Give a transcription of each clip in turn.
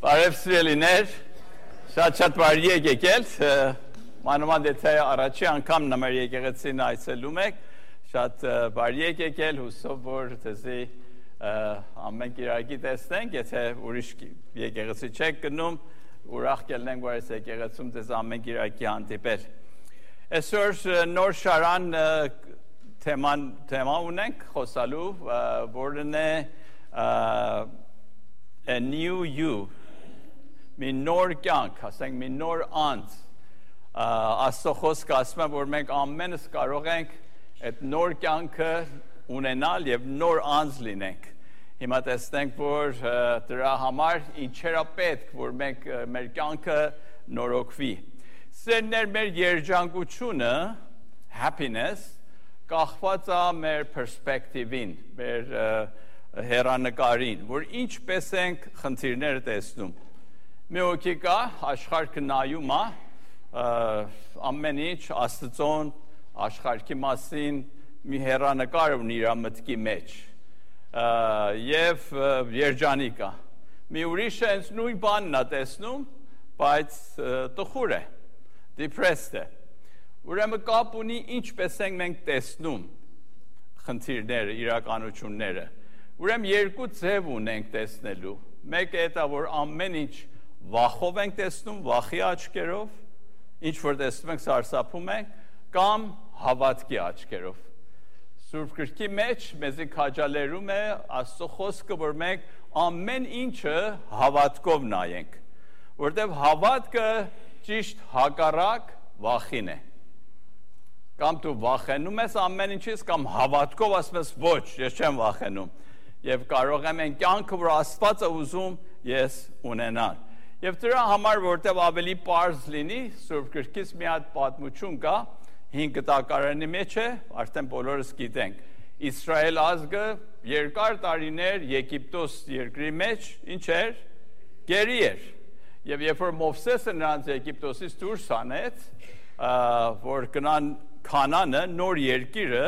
Բարև սիրելիներ, շատ բարի եք եկել, մանավանդ եթե առաջի անգամ նմեր եկեղեցին այցելում եք, շատ բարի եք եկել, հուսով որ ձեզի ամեն կիրակի տեսնենք, եթե ուրիշ եկեղեցի չեք գնում, ուրախ կլինենք, որ այս եկեղեցում ձեզ ամեն կիրակի հանդիպել։ Այսօր նոր շարան թեմա ունենք խոսալու, որն է a new you, մի նոր կյանք, ասենք մի նոր անձ, Աստծո խոսքը ասում է, որ մենք ամենս կարող ենք այդ նոր կյանքը ունենալ եւ նոր անձ լինենք։ Հիմա տեսնենք, որ դրա համար ինչեր է պետք, որ մենք մեր կյանքը նորոգվի։ Սերներ մեր երջանկությունը, happiness, կախված է մեր perspective-ին, մեր հեռանկարին, որ ինչպես ենք խնդիրները տեսնում։ Մի հոգի կա, աշխարհը նայում է, ամեն ինչ Աստծոն աշխարհի մասին մի հեռանկար ունի իր մտքի մեջ եւ երջանիկ է։ Մի ուրիշը հենց նույն բանն է տեսնում, բայց տխուր է, depressed է։ Ուրեմն կապ ունի ինչպես ենք մենք տեսնում խնդիրները, իրականությունները։ Ուրեմն երկու ձև ունենք տեսնելու։ Մեկը դա որ ամեն ինչ վախով ենք տեսնում, վախի աչքերով, ինչ որ տեսնում ենք սարսափում ենք, կամ հավատքի աչքերով։ Սուրբ Գրքի մեջ մեզի քաջալերում է Աստծո խոսքը, որ մենք ամեն ինչը հավատքով նայենք, որտեղ հավատքը ճիշտ հակառակ վախին է։ Կամ դու վախենում ես ամեն ինչից, կամ հավատքով ասում ես ոչ, ես չեմ վախենում։ Եվ կարող եմ այն կյանքը, որ Աստված է ուզում, ես ունենալ։ Եվ դրա համար, որտեղ ավելի պարզ լինի, Սուրբ Գրքից մի հատ պատմություն կա, 5 տակարանի մեջ է, արդեն բոլորս գիտենք։ Իսրայել ազգը երկար տարիներ Եգիպտոս երկրի մեջ ինչ էր? Գերի էր։ Եվ երբ որ Մովսեսը նրանց Եգիպտոսից դուրս հանեց, որ գնան Քանանը, նոր երկիրը,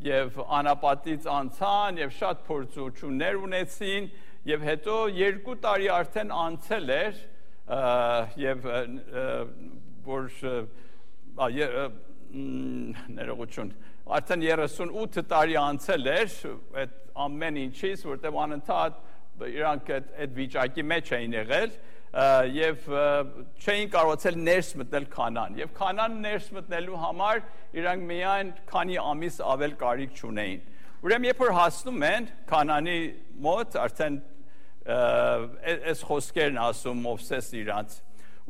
եւ անապատից անցան եւ շատ փորձություններ ունեցին եւ հետո 2 տարի արդեն անցել էր եւ որ ներողություն արդեն 38 տարի անցել էր այդ ամեն ինչից որտեղ անընդհատ իրանք այդ վիճակի մեջ էին եղել եւ չէին կարողացել ներս մտնել Քանան եւ Քանան ներս մտնելու համար իրանք միայն քանի ամիս ավել կարիք չունեին։ Ուրեմն երբ որ հասնում են Քանանի մոտ արդեն այս խոսքերն ասում Մովսես իրանց։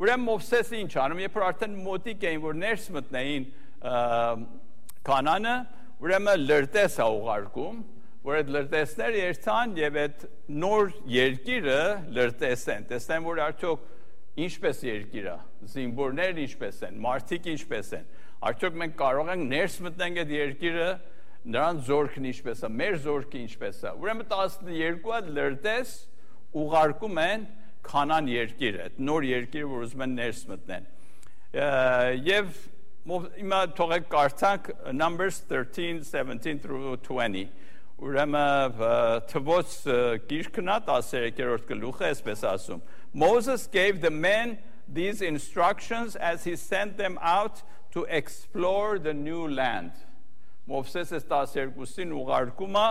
Ուրեմն Մովսեսը ինչ անում, երբ որ արդեն մոտիկ էին որ ներս մտնեին Քանանը, ուրեմն լրտես է ուղարկում, որ այդ լրտեսները երթան եւ այդ նոր երկիրը լրտեսեն։ Տեսնեն, որ արդյոք ինչպես երկիր է, զինվորներ ինչպես են, մարդիկ ինչպես են։ Արդյոք մենք կարող ենք ներս մտնենք այդ երկիրը, նրանց զորքն ինչպես է, մեր զորքը ինչպես է։ Ուրեմն 12 լրտես ուղարկում են Քանան երկիրը, այդ նոր երկիրը, որ ուզում են ներս մտնեն։ Եվ հիմա թողեք կարդանք Numbers 13:17-20 Ուրեմն Թվոց գիրքն է 13-րդ գլուխը այսպես ասում Moses gave the men these instructions as he sent them out to explore the new land Մովսեսը 12-ին ուղարկում է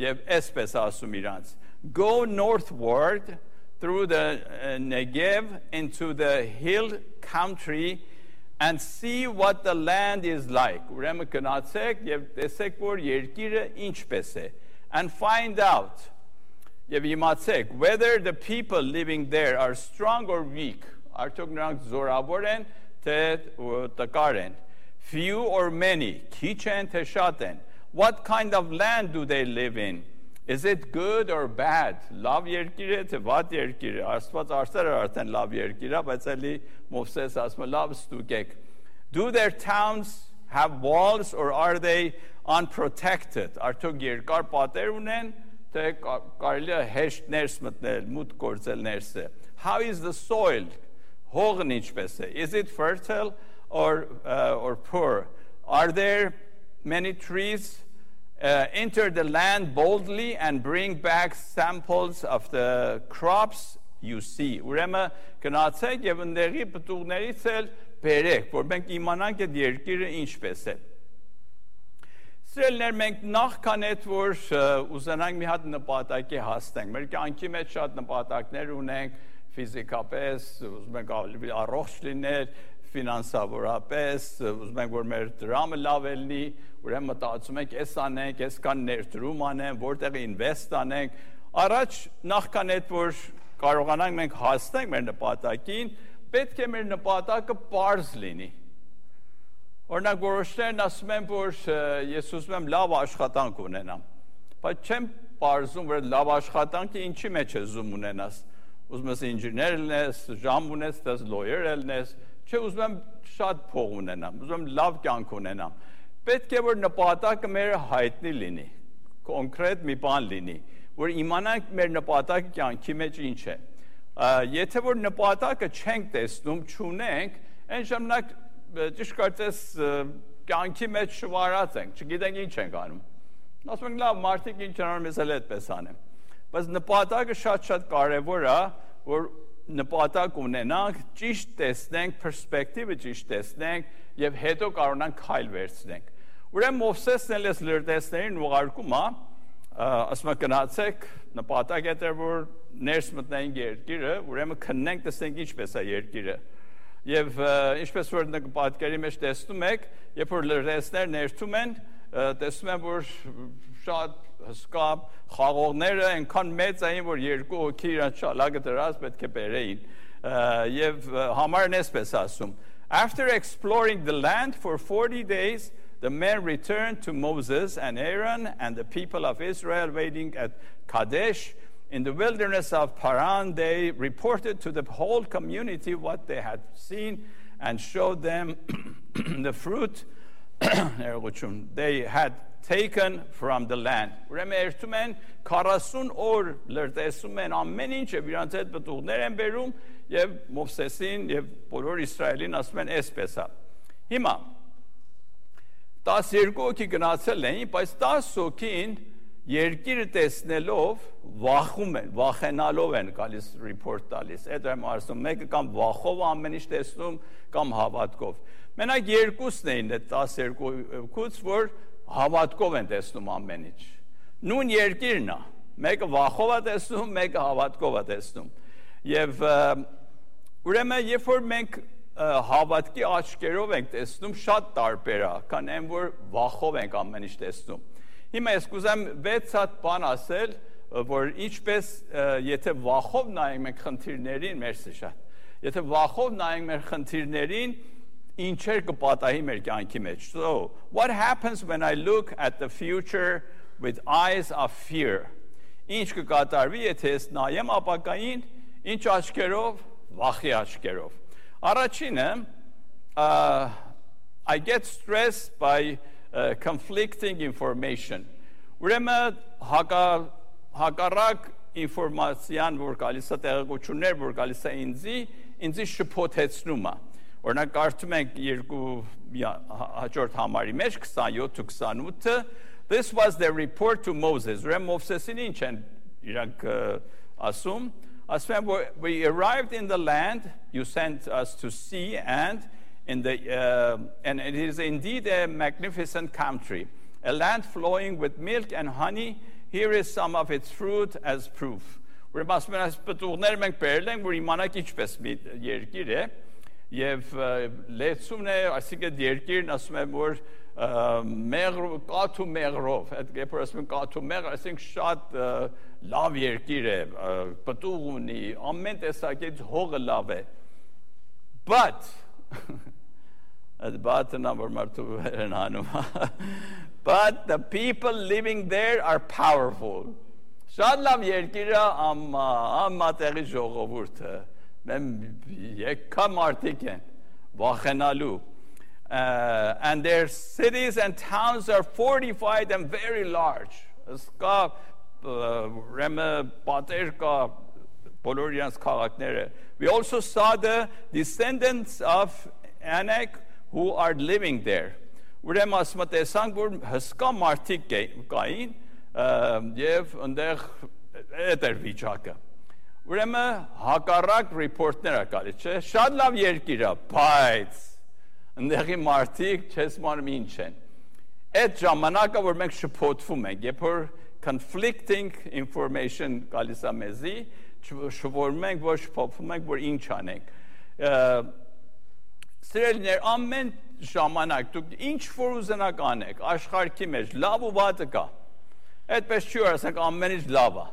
եւ այսպես ասում իրանց Go northward through the Negev into the hill country and see what the land is like. Ուրեմն գնացեք եւ տեսեք որ երկիրը ինչպես է and find out եւ իմացեք whether the people living there are strong or weak. Արդյոք նրանք զորավոր են թե տկար են. Few or many, քիչ են թե շատ են. What kind of land do they live in? Is it good or bad? Լավ երկիր է թե վատ երկիր է? Աստված արդեն արդեն լավ երկիր է, բայց էլի Մովսես ասում է լավ ստուգեք. Do their towns have walls or are they unprotected? Արդյոք երկար պատեր ունեն, թե կարելի է հեշտ ներս մտնել, մուտք գործել ներսը? How is the soil? Հողն ինչպես է? Is it fertile or poor? Are there many trees? Enter the land boldly and bring back samples of the crops you see. Ուրեմն գնացեք եւ ընդեղի պտուղներից էլ բերեք, որ մենք իմանանք այդ երկիրը ինչպես է։ Սիրելիներ, մենք նախքան այդ որ ուզենանք մի հատ նպատակի հասնենք, մեր կյանքի մեջ շատ նպատակներ ունենք, ֆիզիկապես, ուզում ենք ավելի առողջ լինել, ֆինանսավորապես, ուզում ենք որ մեր դրամը լավ լինի, ուրեմն մտածում ենք, էս անենք, այսքան ներդրում անենք, որտեղ ինվեստ անենք, առաջ նախքան այդ որ կարողանանք մենք հասնենք մեր նպատակին, պետք է մեր նպատակը պարզ լինի։ Օրինակ որոշներն ասում են, որ ես ուզում եմ լավ աշխատանք ունենամ, բայց չեմ պարզում, որ լավ աշխատանքը ինչի մեջ է զում ունենաս, ուզում ես ինժեներ լինես, ժամ ունես, դες lawyer լինես, չէ ուզում եմ շատ փող ունենամ, ուզում եմ լավ կյանք ունենամ, պետք է որ նպատակը մեր հայտնի լինի, կոնկրետ մի բան լինի, որ իմանանք մեր նպատակը կյանքի մեջ ինչ է, եթե որ նպատակը չենք տեսնում, չունենք, այն ժամանակ ճիշտ կարծես կյանքի մեջ շվարած ենք, չգիտենք ինչ ենք անում։ Ասում ենք լավ, մարդիկ ինչ անում, ես էլ այդպես անեմ։ Բայց նպատակը շատ կարևոր է, որ նպատակ ունենանք, ճիշտ տեսնենք, պերսպեկտիվը ճիշտ տեսնենք եւ հետո կարողանանք քայլ վերցնենք։ Ուրեմն Մովսեսն էլ էս լրտեսներին ուղարկում է, ասում է գնացեք, նպատակ է որ ներս մտնենք երկիրը, ուրեմն քննենք, տեսնենք ինչպես է երկիրը։ Եվ ինչպես որ պատկերի մեջ տեսնում եք, երբ որ լրտեսներ ներթում են, տեսնում են, որ շատ հսկա խաղողները այնքան մեծ էին, որ երկու հոգի իրան շալակը դրած պետք է բերեին։ Եվ համարն էսպես ասում. After exploring the land for 40 days, the men returned to Moses and Aaron and the people of Israel waiting at Kadesh. In the wilderness of Paran, they reported to the whole community what they had seen and showed them the fruit they had taken from the land. Ուրեմն երթում են 40 օր լրտեսում են ամեն ինչը, իրանց հետ պտուղներ են բերում եւ Մովսեսին եւ բոլոր Իսրայելին ասում են այսպես է։ Հիմա 12 հոգի գնացել էին, բայց 10 հոգին երկիրը տեսնելով վախում են, վախենալով են գալիս report տալիս։ Այդ եմ ասում, մեկը կամ վախով ամեն ինչ տեսնում, կամ հավատքով։ Մենակ երկուսն էին այդ 12-ից, որ հավատքով են տեսնում ամեն ինչ։ Նույն երկիրն է, մեկը վախով է տեսնում, մեկը հավատքով է տեսնում։ Եվ ուրեմն երբ որ մենք հավատքի աչքերով ենք տեսնում, շատ տարբեր է, քան այն որ վախով ենք ամեն ինչ տեսնում։ Հիմա ես կուզեմ 6 հատ բան ասել, որ ինչպես եթե վախով նայենք մենք խնդիրներին, մերսի շատ, եթե վախով նայենք մեր խնդիրներին, ինչեր կպատահի մեր կյանքի մեջ։ So, what happens when I look at the future with eyes of fear? Ինչ կկատարվի, եթե ես նայեմ ապագային, ինչ աչքերով, վախի աչքերով։ Առաջինը, I get stressed by conflicting information. Ուրեմն հակառակ ինֆորմացիան, որ գալիս է տեղեկություններ, որ գալիս է ինձի շփոթեցնում է։ Օրինակ կարդում ենք երկու հաջորդ համարի մեջ 27-28, this was the report to Moses. Ուրեմն Մովսեսին ինչ են իրանք ասում, ասում են, we arrived in the land you sent us to see and it is indeed a magnificent country, a land flowing with milk and honey. Here is some of its fruit as proof. Ուրեմն ասում են, այս պտուղները մենք բերել ենք, որ իմանանք ինչպես մի երկիր է, եւ լեցումն է, այսինքն երկիրն ասում են, որ կաթու մեղրով, այդ երբ որ ասում են կաթու մեղր, այսինքն շատ լավ երկիր է, պտուղ ունի, ամեն տեսակից հողը լավ է։ But but the people living there are powerful. Շատ լավ երկիրը ամմա տեղի ժողովուրդը, եկա մարդիկ են, վախենալու. And their cities and towns are fortified and very large. Կա պատեր կա բոլոր իրենց քաղաքները. We also saw the descendants of Anak who are living there. Ուրեմն ասում տեսանք, որ հսկա մարդիկ կային եւ այնտեղ այդ էր վիճակը։ ուրեմն հակառակ ռիպորտներ ա գալիս, չէ՞, շատ լավ երկիր ա, բայց ընդեղի մարդիկ չես մանում ինչ են։ Այդ ժամանակը, որ մենք շփոթվում ենք, երբ որ conflicting information գալիս ա մեզի, շփոթվում ենք, որ շփոթվում ենք, որ ինչ անենք։ Սիրելիներ, ամեն ժամանակ դուք ինչ որ ուզենաք անեք, աշխարհի մեջ լավ ու վատը կա։ Այդպես չի որ ասենք ամեն ինչ լավ է։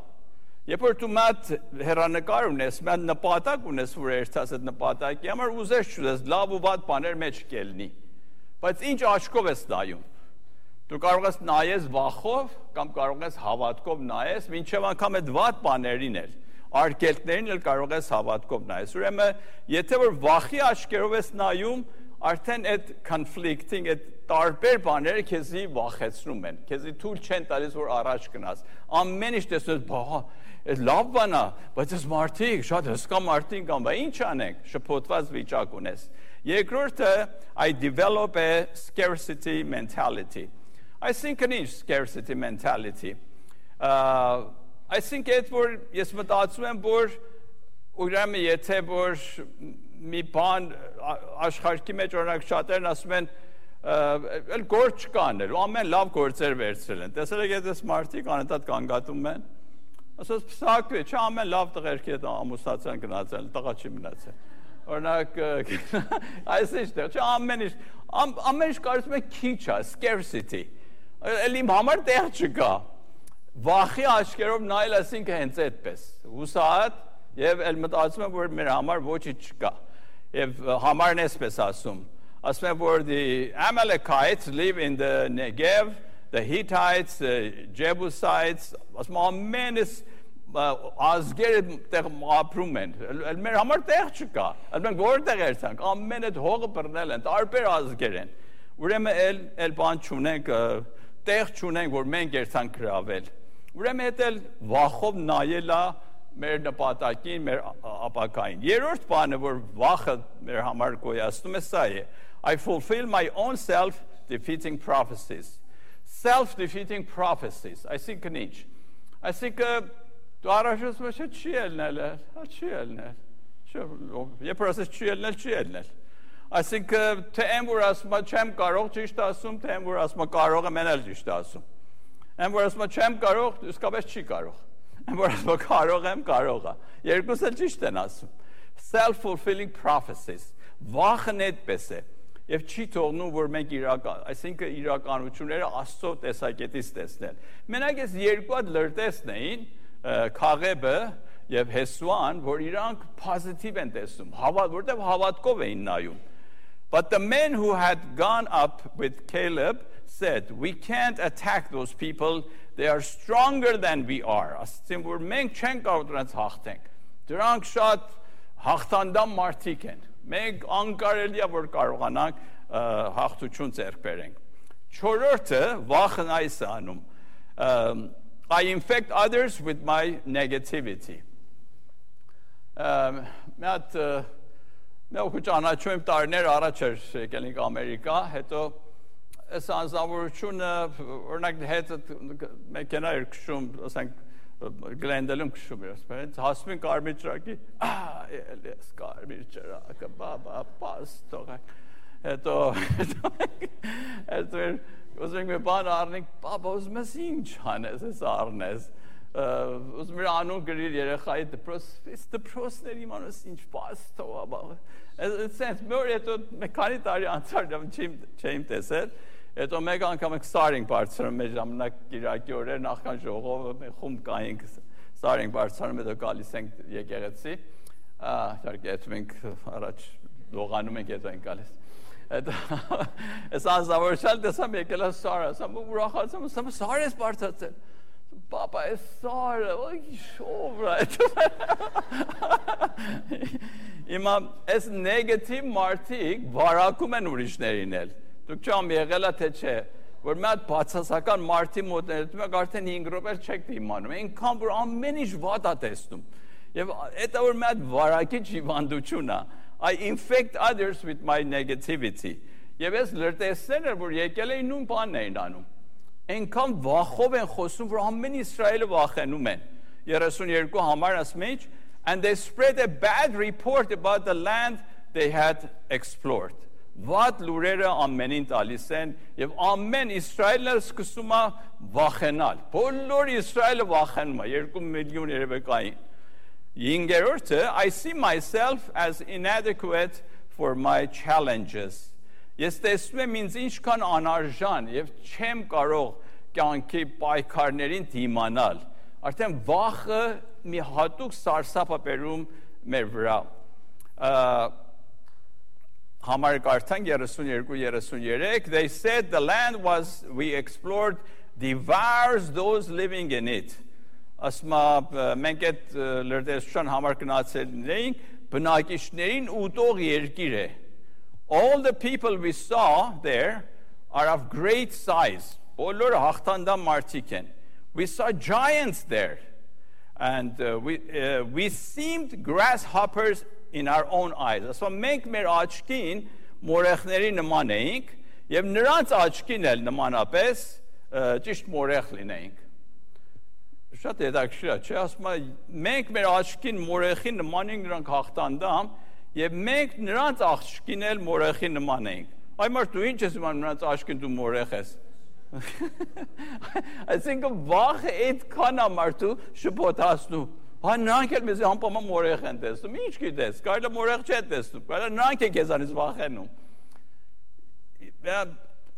Երբ որ դու մատ հերանեկար ունես, մատ նպատակ ունես, որ երթաս այդ նպատակի համար ուզես չուզես լավ ու վատ բաներ մեջ կելնի։ Բայց ինչ աչքով ես նայում։ Դու կարող ես նայես վախով կամ կարող ես հավատքով նայես, մինչև անգամ այդ վատ բաներին էլ արգելքներին էլ կարող ես հավատքով նայես։ Ուրեմն, եթե որ վախի աչքերով ես նայում, արդեն այդ conflicting, այդ տարբեր բաները քեզի վախեցնում են, քեզի թույլ չեն տալիս, որ առաջ գնաս։ Ամեն ինչ տեսնես, բա, այդ լավ բան է, բայց այս մարդիկ, շատ հսկա մարդիկ կան, բա ինչ անենք, շփոթված վիճակ ունես։ Երկրորդը, I develop a scarcity mentality. I think an inch scarcity mentality. I think այդ որ ես մտածում եմ, որ ուրեմն եթե որ մի բան աշխարհի մեջ օրինակ շատերն ասում են էլ գործ չկանել, ամեն լավ գործեր վերցրել են։ Տեսել եք այս մարդիկ անընդհատ կանգատում են։ Ասած փսակվի, չէ, ամեն լավ տղերքի հետ ամուսնացան գնացել, տղա չի մնացել։ Օրինակ այսինքն, չէ, ամեն ինչ կարծում եք քիչ է, scarcity։ Էլ իմ համար տեղ չկա։ Վախի աչքերով նայել ասինքն հենց այդպես հուսահատ եւ էլ մտածում եմ որ մեր համար ոչինչ չկա եւ համարն էսպես ասում եմ որ the Amalekites live in the Negev, the Hittites, the Jebusites, ասում ամենս ազգերը տեղ ապրում են էլ մեր համար տեղ չկա էլ մենք որտեղ երցանք ամեն այդ հողը բռնել են տարբեր ազգեր են ուրեմն էլ բան չունենք տեղ չունենք որ մենք երցանք գրավել Ուրեմն էլ վախով նայելա մեր նպատակին, մեր ապակային։ Երրորդ բանը, որ վախը մեր համար գոյացնում է սա է. I fulfill my own self-defeating prophecies. Self-defeating prophecies. Այսինքն ինչ։ Այսինքն դու առաջում ես չի ելնել, չի ելնել։ Երբ որ ասես չի ելնել, չի ելնել։ Այսինքն թե եմ որ ասում չեմ կարող ճիշտ ասում, թե եմ որ ասում կարող եմ էլ ճիշտ ասում։ Եմ որ ասում չեմ կարող, իսկապես չի կարող։ Եմ որ ասում կարող եմ, կարող է։ Երկուսը ճիշտ են ասում։ Self-fulfilling prophecies. Վախն այդպես է։ Եվ չի թողնում, որ մենք այսինքն իրականությունները Աստծո տեսակետից տեսնել։ Մենակ այս երկու հատ լրտեսն էին, Քաղեբը եւ Հեսուան, որ իրանք positive են տեսնում, որտեղ հավատքով էին նայում։ But the men who had gone up with Caleb said, we can't attack those people, they are stronger than we are. Ասեցին, որ մենք չենք կարող դրանց հաղթենք։ Դրանք շատ հաղթանդամ մարդիկ են։ Մենք անկարելի է, որ կարողանանք հաղթություն ձեռք բերենք։ Չորրորդը վախն այս է անում. I infect others with my negativity. Մենք ճանաչում եմ տարիներ առաջ եկել ենք Ամերիկա, հետո այս անձնավորությունը օրինակ հետ մեքենա էր քշում, ասենք Գլենդելում քշում էր, ասես, հասնում են կարմիր ճրակի, էլես կարմիր ճրակը, բաբա, պաստող։ Հետո ուզում ենք մի բան առնենք, բաբա, ուզում ես ինչ անես, ես առնես։ Ուզում էր անուն գրիր երեխայի դպրոցներ իմանես ինչ պաստող, սենց մոր հետո քանի տարի անցար չեմ տեսել, հետո մեկ անգամ ենք սար ենք բարձրանում մեր ժամանակ կիրակի օրեր նախքան ժողովը խումբ կայինք սար ենք բարձրանում հետո գալիս ենք եկեղեցի իհարկե հետո մենք առաջ լողանում ենք հետո ենք գալիս այս անձնավորության տեսամ եկել է սարը ասամ ուրախացամ ասամ սար ես բարձրացել Papa, it's sorry. Հիմա այս նեգատիվ մարդիկ վարակում են ուրիշներին էլ։ Դուք չամ եղել է թե չէ, որ մի հատ բացասական մարդի մոտ ներդում եք արդեն 5 րոպե չեք իմանում։ Այնքան որ ամեն ինչ վատ է տեսնում։ Եվ դա որ մի հատ վարակիչ հիվանդություն է։ I infect others with my negativity. Եվ այս լրտեսները որ եկել էին նույն բանն էին անում։ Այնքան վախով են խոսում, որ ամեն Իսրայելը վախենում են։ 32 համար ասում են, And they spread a bad report about the land they had explored. What լուրերը ամենին տալիս են եւ ամեն Իսրայելը սկսում է վախենալ։ Բոլոր Իսրայելը վախենում է 2 միլիոն երևեկային։ 5-րդը I see myself as inadequate for my challenges. Ես տեսնում եմ ինձ ինչքան անարժան եւ չեմ կարող կյանքի պայքարներին դիմանալ։ Արդեն վախը մի հատուկ սարսափ է բերում մեր վրա։ Համարը կարդանք 32-33 They said the land we explored devours those living in it. Ասմա մենք այդ լրտեսության համար գնացել էինք բնակիչներին ուտող երկիր է. All the people we saw there are of great size. Բոլորը հաղթանդամ մարդիկ են. We saw giants there. And we seemed grasshoppers in our own eyes. Ասա մենք մեր աչքին մորեխների նման էինք եւ նրանց աչքին էլ նմանապես ճիշտ մորեխ լինեինք։ Շատ հետաքրքիր է, չէ՞, ասում եմ մենք մեր աչքին մորեխի նման ենք նրանք հաղթանդամ եւ մենք նրանց աչքին էլ մորեխի նման էինք։ Այ մարդ դու ինչ ես իմանում նրանց աչքին դու մորեխ ես։ Այսինքն վախը այդքան է մարդու շփոթացնում։ Հա նրանք էլ մեզ անպայման մորեխ են տեսնում։ Ինչ գիտես, կարելի մորեխ չէ տեսնում, կարելի նրանք են քեզանից վախենում։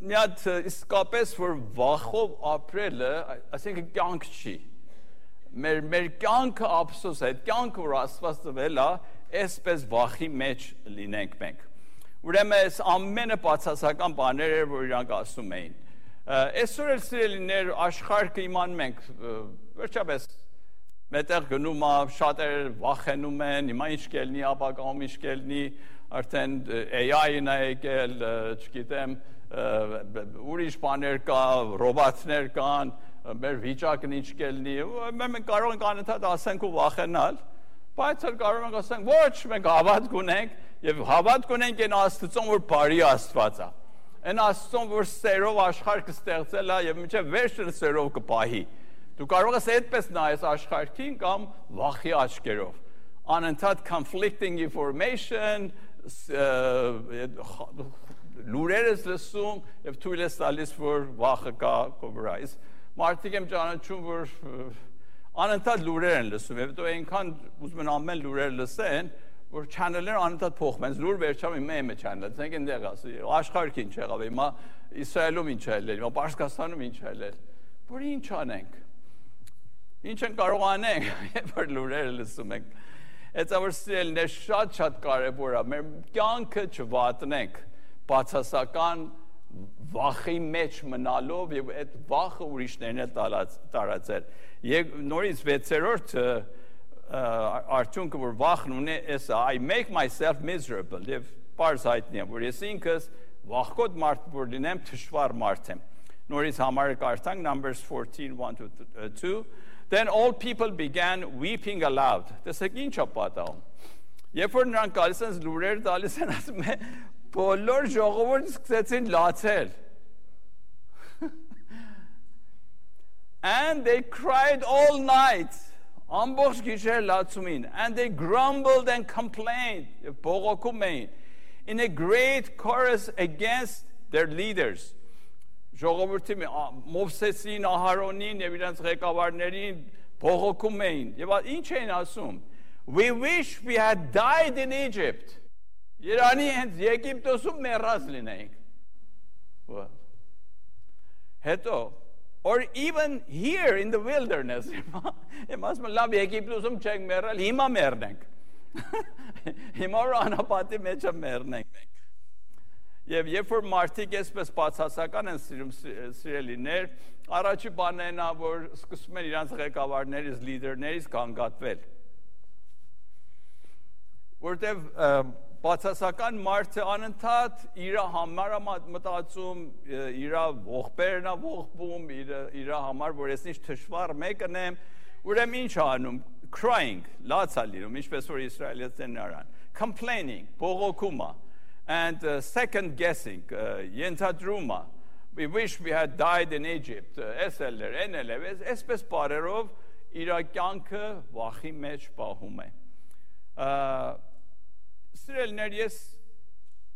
Մի հատ իսկապես որ վախով ապրելը, այսինքն կյանք չի։ Մեր կյանքը ափսոս է, կյանքը որ Աստված տվել է, այսպես վախի մեջ լինենք մենք։ Ուրեմն այս ամենը բացասական բաներ էր, որ իրանք ասում էին։ Այսօր էլ սիրելիներ աշխարհը իմանում ենք, վերջապես մետեղ գնում է, շատեր վախենում են, հիմա ինչ կելնի, ապագայում ինչ կելնի, արդեն AI-ն է եկել, չգիտեմ, ուրիշ բաներ կա, ռոբոտներ կան, մեր վիճակն ինչ կելնի, մենք կարող ենք անընդհատ ասենք ու վախենալ, բայց կարող ենք ասենք, ոչ, մենք հավատք ունենք եւ հավատք ունենք այն Աստծուն, որ բարի Աստված է։ Այն Աստծուն, որ սերով աշխարհ կստեղծել է եւ մինչեւ վերջը սերով կպահի։ Դու կարող ես այդպես նայես աշխարհին կամ վախի աչքերով։ Անընդհատ conflicting information, լուրեր ես լսում եւ թույլ ես տալիս, որ վախը կա քո վրա։ Մարդիկ եմ ճանաչում, որ անընդհատ լուրեր են լսում եւ դու այնքան ուզում են ամեն լուրեր լսեն, որ channel-ները անընդհատ փոխում են։ Լուր վերջանում մեմը channel-ը, ցենք այնտեղ ասի, աշխարհին ինչ եղավ, հիմա Իսրայելում ինչ է ելել, հիմա Պարսկաստանում ինչ է ելել։ Որ ինչ անենք։ Ինչ են կարող անենք, երբ որ լուրերը լսում ենք։ Այդ որ սիրելիներ շատ կարևոր է, մեր կյանքը չվատնենք բացասական վախի մեջ մնալով եւ այդ վախը ուրիշներն էլ տարածել։ Եվ նորից 6-րդ արդյունքը որ վախն ունի, էսա I make myself miserable եւ բարձ հայտնի եմ, որ ես ինքս վախկոտ մարդ որ լինեմ, թշվառ մարդ եմ։ Նորից համարը կարդանք Numbers 14:1-2 Then all people began weeping aloud. Տեսեք ինչ է պատահում։ Երբ որ նրանք գալիս են լուրեր տալիս են, ասում են բոլոր ժողովուրդը սկսեցին լացել։ And they cried all night. Ամբողջ գիշեր լացում էին. And they grumbled and complained. Բողոքում էին. In a great chorus against their leaders. Ժողովուրդի Մովսեսին, Ահարոնին եւ իրենց ղեկավարներին բողոքում էին եւ ինչ էին ասում We wish we had died in Egypt. Իրանի հենց Եգիպտոսում մեռած լինեինք։ Հետո or even here in the wilderness. Ասում լավ Եգիպտոսում չենք մեռել, հիմա մեռնենք։ Հիմա անապատի մեջ մեռնենք մենք։ Եվ երբ որ մարդիկ այսպես բացասական են սիրելիներ, առաջի բանն է, որ սկսում են իրանց ղեկավարներից, լիդերներից կանգատվել։ Որտեվ բացասական մարդը անընդհատ իր համար է մտածում, իր ողբերն է ողբում, իր համար, որ ես ինչ թշվառ մեկն եմ, ուրեմն ինչ անում, crying, լաց է լինում, ինչպես որ իսրայելցիներն արան, complaining, բողոքումը, and second guessing, ենթադրումը, we wish we had died in Egypt, այսպես բարերով իր կյանքը վախի մեջ պահում է։ Սիրելիներ, ես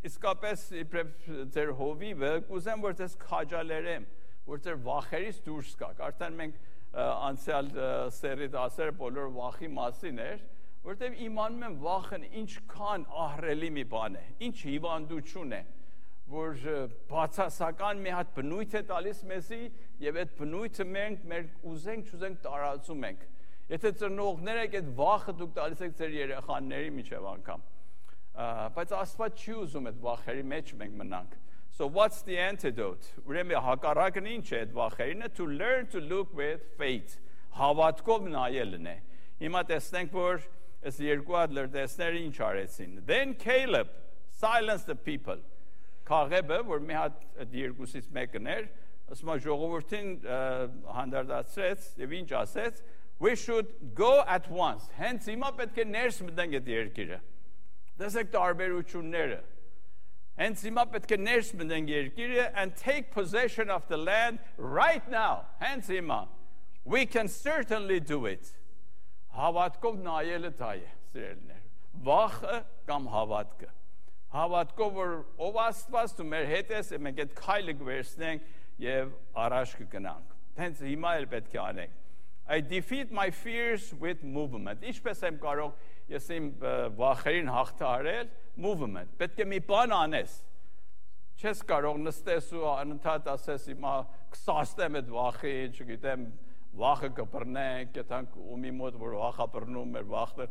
իսկապես իբրև ձեր հովիվը կուզեմ, որ ձեզ քաջալերեմ, որ ձեր վախերից դուրս գաք։ Արդեն մենք անցյալ սերի դասերը բոլոր վախի մասին էր, որտեղ իմանում եմ վախն ինչքան ահռելի մի բան է, ինչ հիվանդություն է, որ բացասական մի հատ բնույթ է տալիս մեզի եւ այդ բնույթը մենք մեր ուզենք տարածում ենք։ Եթե ծնողներ եք, այդ վախը դուք տալիս եք ձեր երեխաների միջև անգամ։ Բայց Աստված չի ուզում այդ վախերի մեջ մենք մնանք։ So what's the antidote? Ուրեմն հակառակն ինչ է այդ վախերինը? To learn to look with faith. Հավատքով նայելն է։ Հիմա տեսնենք, որ այս երկու հատ լրտեսները ինչ արեցին։ Then Caleb silenced the people. Քաղեբը, որ մի հատ այդ երկուսից մեկն էր, ասում է ժողովրդին հանդարտացրեց եւ ինչ ասեց? We should go at once. Հենց հիմա պետք է ներս մտնենք այդ երկիրը։ Տեսեք տարբերությունները։ Hence հիմա պետք է ներս մտնենք երկիրը and take possession of the land right now. Hence հիմա we can certainly do it. Հավատքով նայելը դա է, սիրելիներ։ Վախը կամ հավատքը։ Հավատքով որ ով Աստված ու մեր հետ է, մենք այդ քայլը կվերցնենք եւ առաջ կգնանք։ Հենց հիմա էլ պետք է անենք։ I defeat my fears with movement. Ինչպես եմ կարող ես իմ վախերին հաղթահարել movement. Պետք է մի բան անես։ Չես կարող նստես ու անընդհատ ասես հիմա կսաստեմ այդ վախի, չգիտեմ, վախը կբռնենք, գտանք ումի մոտ որ վախա բռնում մեր վախը,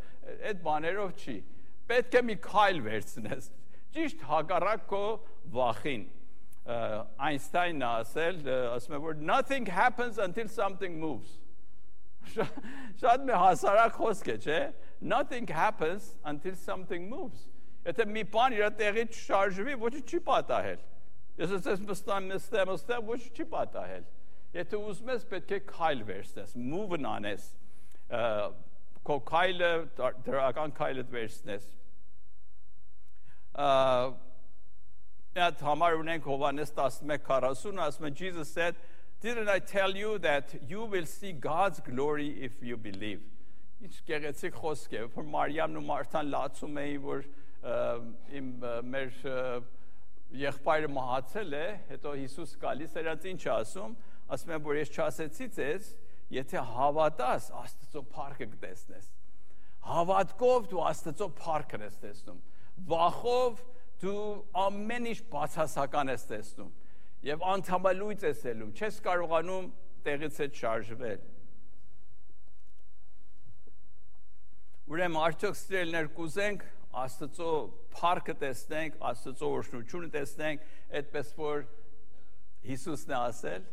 այդ բաներով չի։ Պետք է մի քայլ վերցնես։ Ճիշտ հակառակ քո վախին։ Այնստայնն ասել, ասում է որ nothing happens until something moves. Շատ մի հասարակ խոսք է, չէ՞։ Nothing happens until something moves. Եթե մի բան իր տեղից չշարժվի, ոչինչ չի պատահել։ Ես ասես նստեմ, ոչինչ չի պատահել։ Եթե ուզում ես, պետք է քայլ վերցնես, move-ն անես, քո քայլը, դրական քայլը վերցնես։ Այդ համար ունենք Հովհաննես 11:40, ասում է Jesus said, didn't I tell you that you will see God's glory if you believe։ Ինչ գեղեցիկ խոսք է, որ Մարիամն ու Մարթան լացում էին, որ մեր եղբայրը մահացել է, հետո Հիսուս գալիս էր, ինչ ասում, ասում եմ, որ ես չասեցի ձեզ, եթե հավատաս, Աստծո փառքը կտեսնես։ Հավատքով դու Աստծո փառքն ես տեսնում։ Վախով դու ամեն ինչ բացասական ես տեսնում եւ անդամալույց ես ելում, չես կարողանում տեղից հետ շարժվել։ Ուրեմն արդյոք սիրելիներ կուզենք Աստծո փառքը տեսնենք, Աստծո օրհնությունը տեսնենք, այդպես որ Հիսուսն է ասել,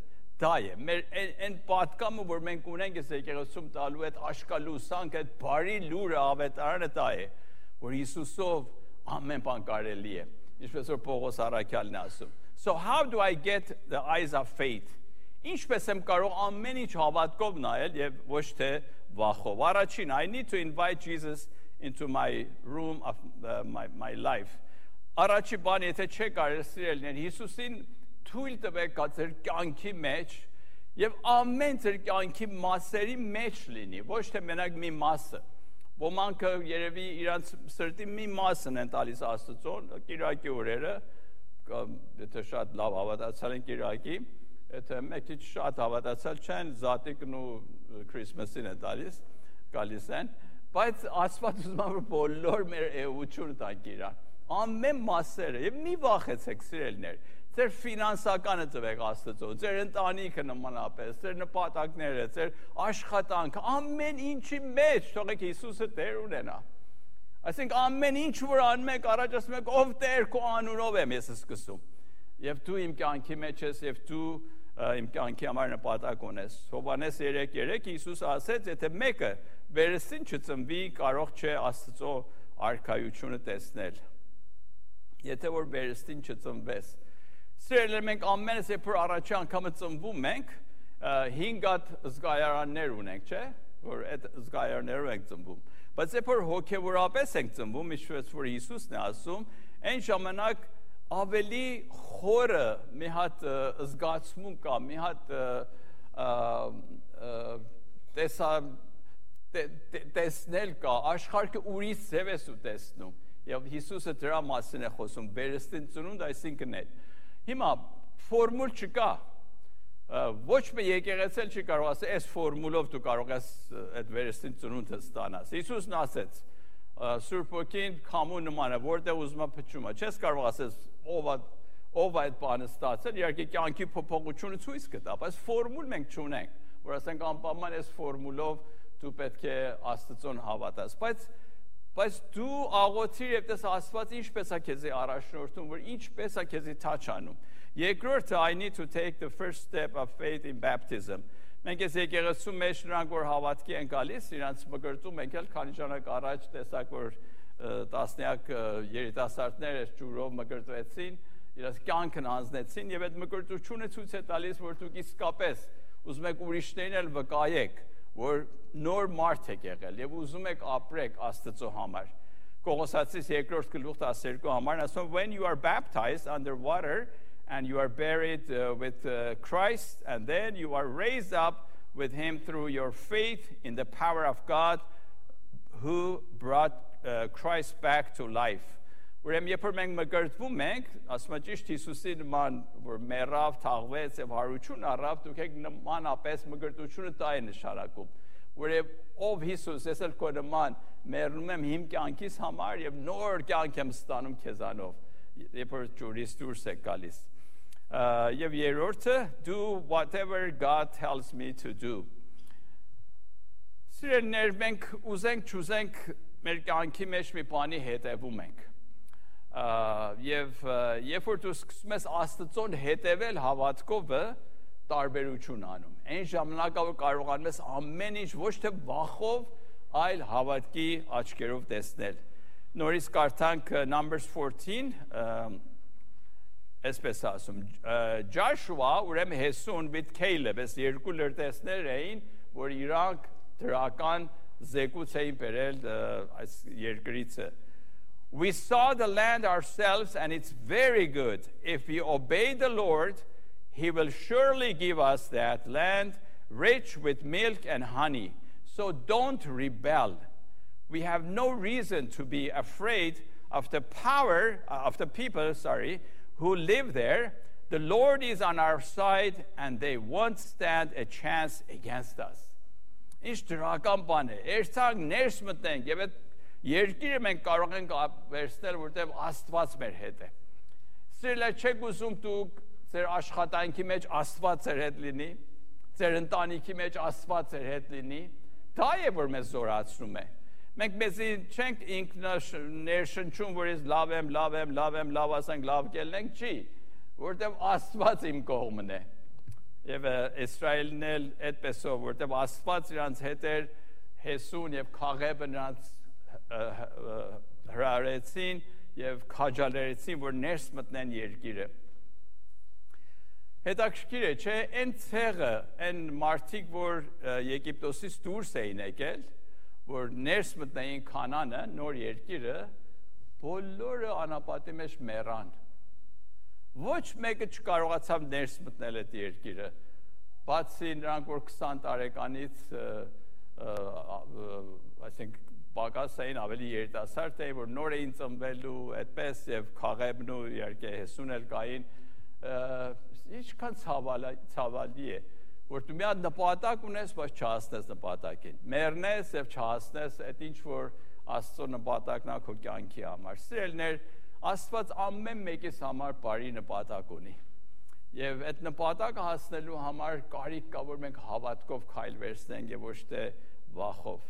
դա է։ Մեր այն պատկամը, որ մենք ունենք այս եկեղեցում տալու այդ աշկալուսանք, այդ բարի լուրը ավետարանը դա է, որ Հիսուսով ամեն բան կարելի է, ինչպես որ Պողոս առաքյալն է ասում։ So how do I get the eyes of faith? Ինչպես եմ կարող ամեն ինչ հավատքով նայել եւ ոչ թե վախով։ Առաջին, I need to invite Jesus into my room of my life. Առաջի բան, եթե չեք կարել սիրելիներ, Հիսուսին թույլ տվեք ձեր կյանքի մեջ եւ ամեն ձեր կյանքի մասերի մեջ լինի, ոչ թե մենակ մի մասը։ Ոմանք երևի իրանց սրտի մի մասն են տալիս Աստծոն, Կիրակի օրերը, եթե շատ լավ հավատացյալ են Կիրակի, եթե մեկ քիչ շատ հավատացյալ չեն, Զատիկն ու Քրիսմասին են գալիս են, բայց Աստված ուզում է որ բոլոր մեր էությունը տանք իրան, ամեն մասերը, եւ մի վախեցեք սիրելիներ, ձեր ֆինանսականը տվեք Աստծո, ձեր ընտանիքը նմանապես, ձեր նպատակները, ձեր աշխատանքը, ամեն ինչի մեջ թողեք Հիսուսը Տեր ունենա։ Այսինքն ամեն ինչ որ անում եք, առաջ ասում եք ով Տեր քո անունով եմ ես սկսում։ Եվ դու իմ կյանքի մեջ ես եւ դու իմ կյանքի համար նպատակ ունես։ Հովհաննես 3:3 Հիսուս ասեց, եթե մեկը վերստին չծնվի, կարող չէ Աստծո արքայությունը տեսնել։ Եթե որ վերստին չծնվես, սիրելիներ, մենք ամենս երբ որ առաջի անգամը ծնվում ենք, 5 հատ զգայարաններ ունենք, չէ՞, որ այդ զգայարաններով ենք ծնվում։ Բայց երբ որ հոգեորապես ենք ծնվում, ինչպես որ Հիսուսն է ասում, այն ժամանակ ավելի խորը մի հատ զգացմունք կա, մի հատ տեսնել կա, աշխարհը ուրիշ ձև է տեսնում։ Եվ Հիսուսը դրա մասին է խոսում, վերստին ծնունդ, այսինքն է։ Հիմա ֆորմուլ չկա։ Ոչ մի եկեղեցել չի կարող ասել, այս ֆորմուլով դու կարող ես այդ վերստին ծնունդը ստանաս։ Հիսուսն ասեց, Սուրբ Օքին քամու նման է, որտեղ ուզում է փչում է։ Չես կարող ասես ով այդ բանը ստացել, իհարկե կյանքի փոփոխությունը ցույց կտա, բայց ֆորմուլ մենք չունենք, որ ասենք անպայման այս ֆորմուլով դու պետք է Աստծուն հավատաս, բայց դու աղոթիր եւ տես Աստված ինչպես է քեզի առաջնորդում, որ ինչպես է քեզի թաչանում։ Երկրորդը, I need to take the first step of faith in baptism։ Մենք այս եկեղեցու մեջ նրանք որ հավատքի են գալիս, իրանց մկրտում ենք էլ քանի ժամանակ առաջ տեսակ որ տասնյակ երիտասարդներ ջուրով մկրտվեցին, իրաց կյանքն անձնեցին եւ այդ մկրտությունը ցույց է տալիս, որ դուք իսկապես ուզում եք ուրիշներին էլ վկայեք, որ նոր մարդ եք եղել եւ ուզում եք ապրեք Աստծո համար։ Կողոսացիս 2-րդ գլուխ 12 համարն ասում when you are baptized under water and you are buried with Christ and then you are raised up with him through your faith in the power of God who brought Christ back to life։ Ուրեմն երբ մենք մկրտվում ենք, ասում եմ ճիշտ Հիսուսի նման որ մեռավ, թաղվեց եւ հարություն առավ, դուք եք նմանապես մկրտությունը դա է նշանակում։ Որև ով Հիսուս, ես էլ քո նման մեռնում եմ իմ կյանքիս համար եւ նոր կյանք եմ ստանում քեզանով, երբ որ ջուրից դուրս եք գալիս։ Եվ երրորդը do whatever God tells me to do։ Սիրելիներ, մենք ուզենք չուզենք մեր կյանքի մեջ մի բանի հետևում ենք։ Եվ երբ որ դու սկսում ես Աստծուն հետևել հավատքով, տարբերություն անում։ Այն ժամանակը կարողանում ես ամեն ինչ ոչ թե վախով, այլ հավատքի աչքերով տեսնել։ Նորից կարդանք Numbers 14, այսպես ասում, Joshua, ուրեմն Հեսուն with Caleb, այս երկու լրտեսներ էին, որ իրանք դրական զեկույց էին բերել այս երկրիցը։ We saw the land ourselves and it's very good. If we obey the Lord, he will surely give us that land rich with milk and honey. So don't rebel. We have no reason to be afraid of the power of the people, who live there. The Lord is on our side and they won't stand a chance against us. Ինչ դրական բան է։ Երթանք ներս մտնենք եւ այդ երկիրը մենք կարող ենք վերցնել, որտեղ Աստված մեր հետ է։ Սիրելիներ, չեք ուզում դուք ձեր աշխատանքի մեջ Աստված ձեր հետ լինի, ձեր ընտանիքի մեջ Աստված ձեր հետ լինի, դա է որ մեզ զորացնում է։ Մենք մեզի չենք ինքներշնչում, որ ես լավ ասենք, լավ կելնենք, չի, որտեղ Աստված իմ կողմն է։ Եվ Իսրայելն էլ այդպեսով, որտեղ Աստված իրանց հետ էր, Հեսուն եւ Քաղեբը նրանց հրարեցին եւ քաջալերեցին, որ ներս մտնեն երկիրը։ Հետաքրքիր է, չէ, այն ցեղը, այն մարդիկ, որ Եգիպտոսից դուրս էին եկել, որ ներս մտնեին Քանանը, նոր երկիրը, բոլորը անապատի մեջ մեռան։ Ոչ մեկը չկարողացավ ներս մտնել այդ երկիրը, բացի նրանք, որ 20 տարեկանից, այսինքն պակաս էին, ավելի երիտասարդ էին, որ նոր էին ծնվելու, այդպես եւ Քաղեբն ու իհարկե Հեսուն էլ կային, ինչքան ցավալի է, որ դու մի հատ նպատակ ունես, բայց չհասնես նպատակին, մեռնես եւ չհասնես այդ ինչ որ Աստծո նպատակն է քո կյանքի համար։ Սիրելիներ, Աստված ամեն մեկիս համար բարի նպատակ ունի։ Եվ այդ նպատակը հասնելու համար կարիք կա, որ մենք հավատքով քայլ վերցնենք եւ ոչ թե վախով։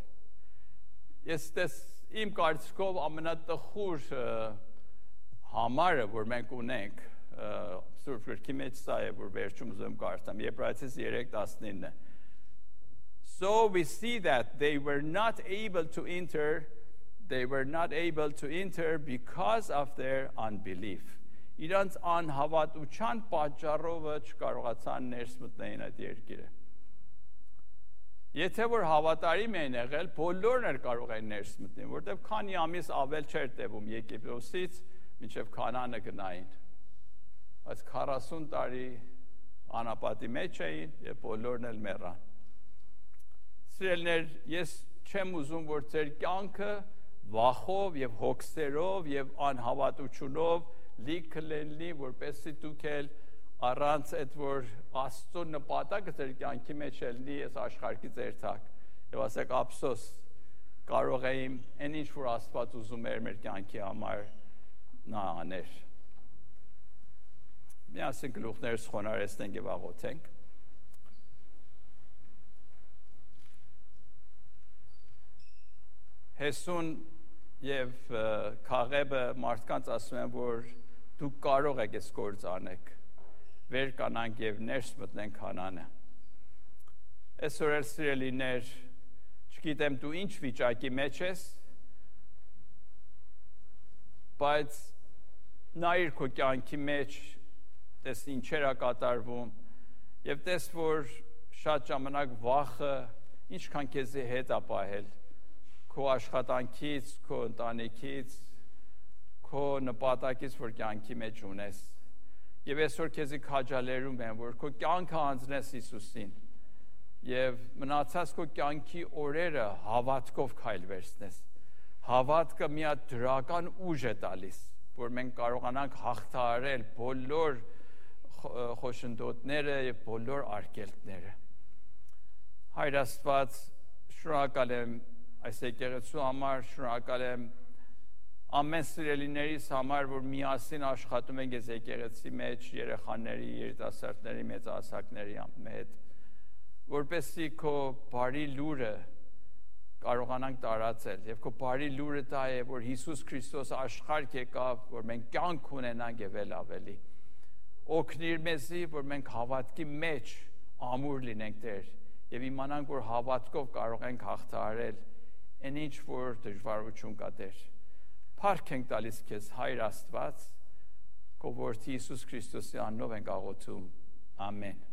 Ես իմ կարծիքով ամենատխուր համարը, որ մենք ունենք, Սուրբ Գրքի մեջ սա է, որ վերջում ուզում կարդամ, Եբրայեցիս 3:19։ So we see that they were not able to enter because of their unbelief. Իրանց անհավատության պատճառով չկարողացան ներս մտնել այդ երկիրը։ Եթե որ հավատարիմ էին եղել, բոլորն էլ կարող են ներս մտնել, որտեղ քանի ամիս ավել չէր տևում Եգիպտոսից մինչև Քանանը գնային։ Բայց 40 տարի անապատի մեջ էին եւ բոլորն էլ մեռան։ Սիրելիներ, ես չեմ ուզում, որ ձեր կյանքը վախով եւ հոգսերով եւ անհավատությունով լիքը լինի, որպեսզի դուք էլ առանց այդ որ Աստծո նպատակը ձեր կյանքի մեջ լինի, այս աշխարհի ձեր տակ։ Եվ ասեք ափսոս, կարող եմ այն ինչ որ Աստված ուզում էր մեր կյանքի համար նա աներ։ Միասին գլուխներս խոնարհեցնենք եւ աղոթենք։ Հեսուն եւ Քաղեբը մարդկանց ասում են, որ դուք կարող եք այս գործ անեք։ Վեր կանանք եւ ներս մտնենք Քանանը։ Այսօր էլ սիրելիներ, չգիտեմ դու ինչ վիճակի մեջ ես, բայց նայիր քո կյանքի մեջ, տես ինչեր է կատարվում եւ տես որ շատ ժամանակ վախը ինչքան քեզի հետ է պահել քո աշխատանքից, քո ընտանիքից, քո նպատակից, որ կյանքի մեջ ունես։ Եվ այսօր քեզի քաջալերում եմ, որ քո կյանքը անձնես Հիսուսին եւ մնացած քո կյանքի օրերը հավատքով քայլ վերցնես։ Հավատքը մի հատ դրական ուժ է տալիս, որ մենք կարողանանք հաղթահարել բոլոր խոշնդոտները եւ բոլոր արգելքները։ Հայր Աստված, շնորհակալ եմ այս եկեղեցու համար, շնորհակալ եմ ամեն սիրելիներիս համար, որ միասին աշխատում ենք այս եկեղեցի մեջ երեխաների, երիտասարդների, մեծահասակների հետ, որպեսզի քո բարի լուրը կարողանանք տարածել եւ քո բարի լուրը դա է, որ Հիսուս Քրիստոս աշխարհ եկավ, որ մենք կյանք ունենանք եւ էլ ավելի։ Օգնիր մեզի, որ մենք հավատքի մեջ ամուր լինենք Տեր եւ իմանանք, որ հավատքով կարող ենք հաղթահարել այն ինչ որ դժվարություն կա Տեր։ Փառք ենք տալիս քեզ Հայր Աստված, քո որդի Հիսուս Քրիստոսի անունով ենք աղոթում։ Ամեն։